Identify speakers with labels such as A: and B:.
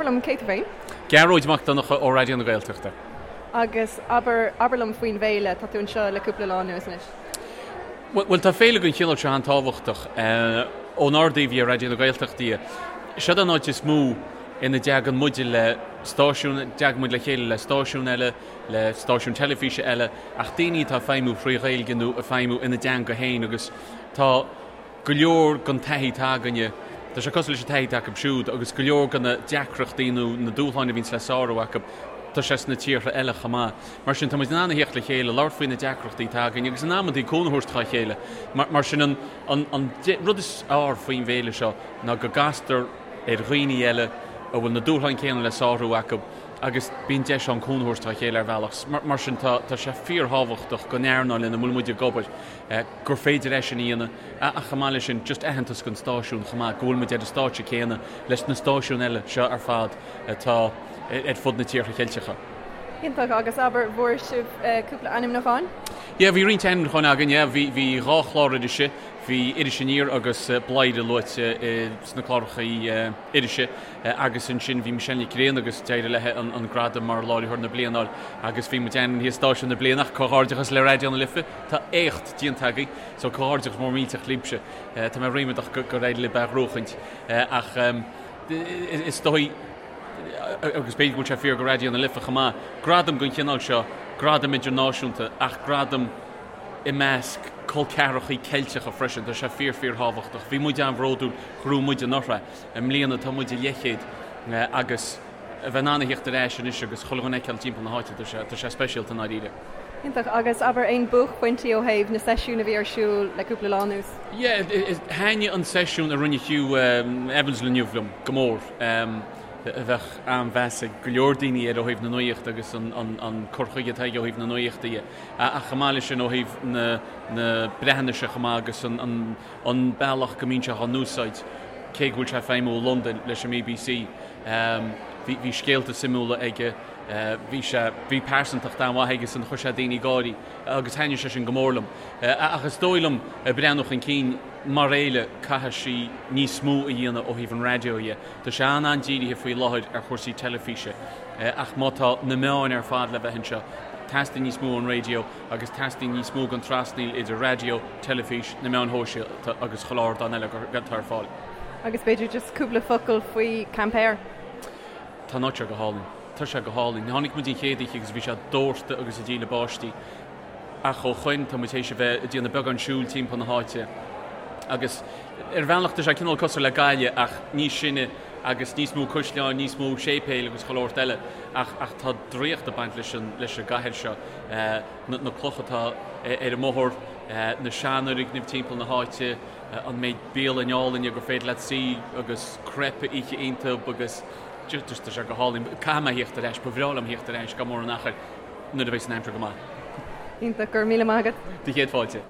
A: Abair liom, cé tú féin?
B: Gearóid Mac Donncha ó Raidió na Gaeltachta.
A: Agus abair, abair liom faoin bhféile, tá tú anseo le cúpla lá anuas anois.
B: Bhuel, tá féile den chineál seo an-tábhachtach. Ónár dtaobh dhe, Raidió na Gaeltachta dhe, seod an áit is mó ina dteagann muide le stáisiún, dteagann muid le chéile le stáisiún eile, le stáisiún teilifíse eile, ach daoine atá ag feidhmiú thrí Ghaeilge nó ag feidhmiú ina dteanga féin agus tá go leor den taithí atá againne, tá sé cosúil leis an taithí atá acu siúd agus go leor de na deacrachtaí nó na dúshláin a bhíonns le sárú acu, tá sé sna tíortha eile chomh maith. Mar sin, tá muid in ann a theacht le chéile, labhairt faoi na deacrachtaí atá againn agus in amantaí cúnamh a thabhairt dhá chéile. Mar sin, an an rud is fearr faoin bhféile seo ná go gcastar ar dhaoine eile a bhfuil na dúshláin céanna le sárú acu agus bíonn deis ann cúnamh a thabhairt dá chéile ar bhealach. Mar sin, tá sé fíorthábhachtach don earnáil ina bhfuil muid ag obair gur féidir é sin a dhéanamh ach chomh maith leis sin, just aitheantas don stáisiún chomh maith, go bhfuil muid ar an stáitse céanna leis na stáisiúin eile seo ar fad atá ar fud na tíortha Ceilteacha.
A: Iontach, agus abair, bhfuair sibh cúpla ainmniúcháin?
B: Yeah, bhí roinnt ainmniúcháin againn, yeah. Bhí, bhí dhá chlár irise, bhí Iris Aniar agus Bladhaire luaite sna cláracha irise agus ansin bhí Michelle Nic Grianna agus d'éirigh léi an gradam mar Láithreoir na Bliana a fháil agus bhí muid ainmnithe Stáisiún na Bliana ach comhghairdeachas le Raidió na Life, tá éacht déanta agaibh so comhghairdeachas mór millteach libhse. Tá mé ríméadach gur éirigh libh é a ghnóchaint ach is dóigh agus b'fhéidir go bhfuil sé fíor do Raidió na Life chomh maith, gradam den chineál seo, gradam idirnáisiúnta ach gradam i measc col ceathrachaí Ceilteacha freisin, tá sé fíor fíor thábhachtach. Bhí muid an-bhródúil go raibh muid anuraidh. I mbliana tá muid i leathchéad agus a bheith in ann a theacht ar ais anois agus chuile dhuine a fheiceáil timpeall na háite, tá sé, tá sé speisialta i ndáiríre.
A: Iontach. Agus abair aon buaicphointí ó thaobh na seisiún a bhí ar siúl le cúpla lá anuas?
B: Yeah, thaitnigh an seisiún a rinne Hugh Evans inniu liom go mór. A bheadh an-mheas ag go leor daoine air ó thaobh na nuachta agus an cur chuige atá aige ó thaobh na nuachta dhe. Ach chomh maith leis sin ó thaobh na Breatnaise chomh maith agus an an bealach go mbíonn sé á n-úsáid, cé go bhfuil sé ag feidhmiú i Londain leis an mBBC. Bhí bhí scéalta suimiúla aige, bhí sé, bhí pearsantacht an-mhaith aige san, chuir sé daoine ag gáirí agus thaitnigh sé sin go mór liom. Ach is dóigh liom, ag breathnú chun cinn, mar fhéile, caithfidh sí níos mó a dhéanamh ó thaobh an raidió dhe. Tá sé an-an-dírithe faoi láthair ar chúrsaí teilifíse ach má tá na meáin ar fad le bheith anseo, teastaíonn níos mó ón raidió agus teastaíonn níos mó den trasnaíl idir raidió, teilifís, na meáin shóisialta agus chuile ardán eile atá ar fáil.
A: Agus b'fhéidir just cúpla focal faoi Quimper?
B: Tá an áit seo go hálainn. Tá sé go hálainn. Tháinig muid an chéad oíche agus bhí sé dórtadh agus ag díle báistí. Ach ó shoin tá muid théis a bheith ag déanamh beagán siúil timpeall na háite agus ar bhealach tá sé cineál cosúil le Gaillimh ach níos sine agus níos mó caisleáin, níos mó séipéil agus chuile shórt eile ach ach tá draíocht ag baint leis an leis an gcathair seo. Na na clocha atá ar an mbóthar, na seanfhoirgnimh timpeall na háite, an méid bialann álainne gur féidir leat suí agus crepe a ithe iontu agus just tá sé go hálainn. Caithfidh mé a thíocht ar ais, ba bhreá liom a thíocht ar ais gan mórán achair nuair a bheidh an aimsir go maith.
A: Iontach, go raibh míle maith agat.
B: Do chéad fáilte.